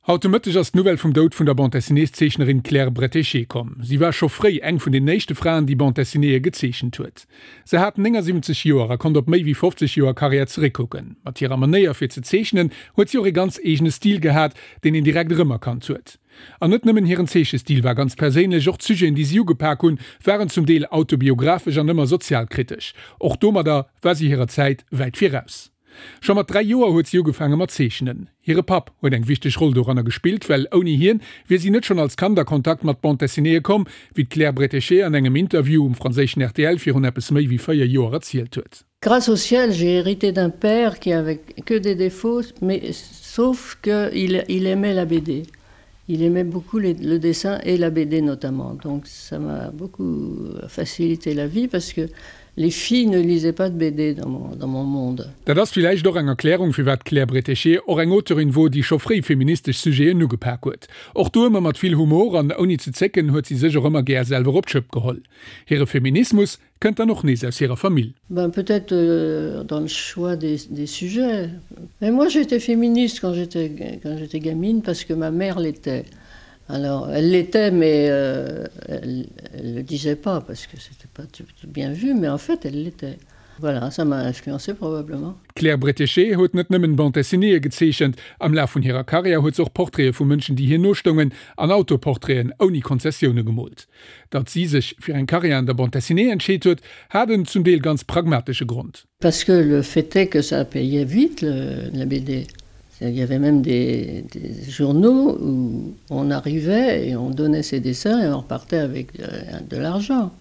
Haut de Mëtteg ass d'Nouvelle vum Doud vun der Bande-dessinées-Zeechnerin Claire Bretéché komm. Si war scho fréi eng vun den éischte Fraen, déi Bande-dessinéeë gezeechent huet. Se hat 79 Joer a konnt op méi wéi 50 Joer Karriär zeréckkucken. Mat hirer Manéier fir ze zeechnen huet si och ee ganz eegene Stil gehat, deen een direkt erëmerkannt huet. An net nëmmen hiren Zeechestil war ganz perséinlech, och d'Sujeten, déi si ugepak hunn, waren zum Deel autobiographesch an ëmmer sozialkritesch. Och domadder war si hirer Zäit wäit viraus. Scho mat 3 Joer huet si ugefaange mat zeechnen. Hire Papp huet eng wichteg Roll doranner gespillt, well ouni hien wier si net schonn als Kand a Kontakt mat Bande Dessinéeë komm, wéi d'Claire Bretéché an engem Interview um franséischen rtl virun eppes méi wéi 4 Joer erzielt huet. Grâce au ciel, j'ai hérité d'un père qui avait que des défauts, mais sauf que il, il aimait la BD. Il aimait beaucoup les, le dessin et la BD notamment. Donc ça m'a beaucoup facilité la vie parce que les filles ne lisaient pas de BD dans mon, dans mon monde. Dat ass villäicht och eng Erklärung, firwat d'Claire Bretéché och eng Auteurin wor, déi scho fréi feministesch Sujeten ugepak huet. Och do ëmmer mat vill Humor an ouni ze zécken huet si sech och ëmmer gär selwer op d'Schëpp geholl. Hire Feminismus kënnt dann och nees aus hirer Famill. Ben peut-être euh, dans le choix des, des sujets. Mais moi j'étais féministe quand j'étais quand j'étais gamine parce que ma mère l'était. Alors elle l'était mais euh, elle, elle le disait pas parce que c'était pas tout, tout bien vu, mais en fait elle l'était. Voilà, ça m'a influencé probablement. D'Claire Bretéché huet net nëmmen Bande dessinéeë gezeechent, am Laf vun hirer Karriär huet se och Portraite vu Mënschen, déi hir nostoungen, an Autoportraiten ouni Konzessioune gemoolt. Datt si sech fir eng Karriär an der Bande dessinée entscheet huet, hat en zum Deel ganz pragmatesche Grond. Parce que le fait est que ça payait vite le, la BD. Il y avait même des, des journaux où on arrivait et on donnait ses dessins et on repartait avec de, euh, de l'argent.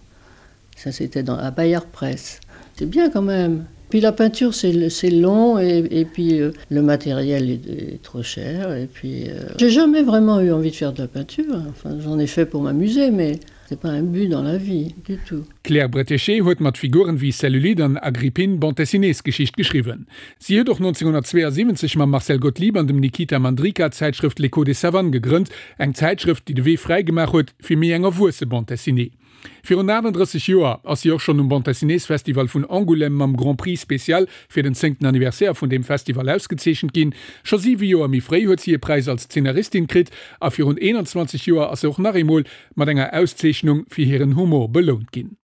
Ça c'était dans à Bayard Presse. C'est bien quand même. Puis la peinture c'est long et, et puis euh, le matériel est, est trop cher et puis euh, j'ai jamais vraiment eu envie de faire de la peinture enfin j'en ai fait pour m'amuser mais c'est pas un but dans la vie du tout. D'Claire Bretéché huet mat Figuren wéi Cellulite an Agrippine Bande-dessinées-Geschicht geschriwwen. Si huet och 1972 mam Marcel Gottlieb an dem Nikita Mandryka d'Zäitschrëft L'Écho des Savanes gegrënnt, eng Zäitschrëft, déi de Wee fräi gemaach huet fir méi eng erwuesse Bande dessinée. Virun 38 Joer ass si och schonn um Bande-dessinées-Festival vun Angoulême mam Grand Prix spécial fir den zéngten Anniversaire vun deem Festival ausgezeechent ginn. Scho siwe Joer méi fréi huet si e Präis als Zeenaristin kritt a virun 21 Joer ass se och nach eemol mat enger Auszeechnung fir hiren Humor belount ginn.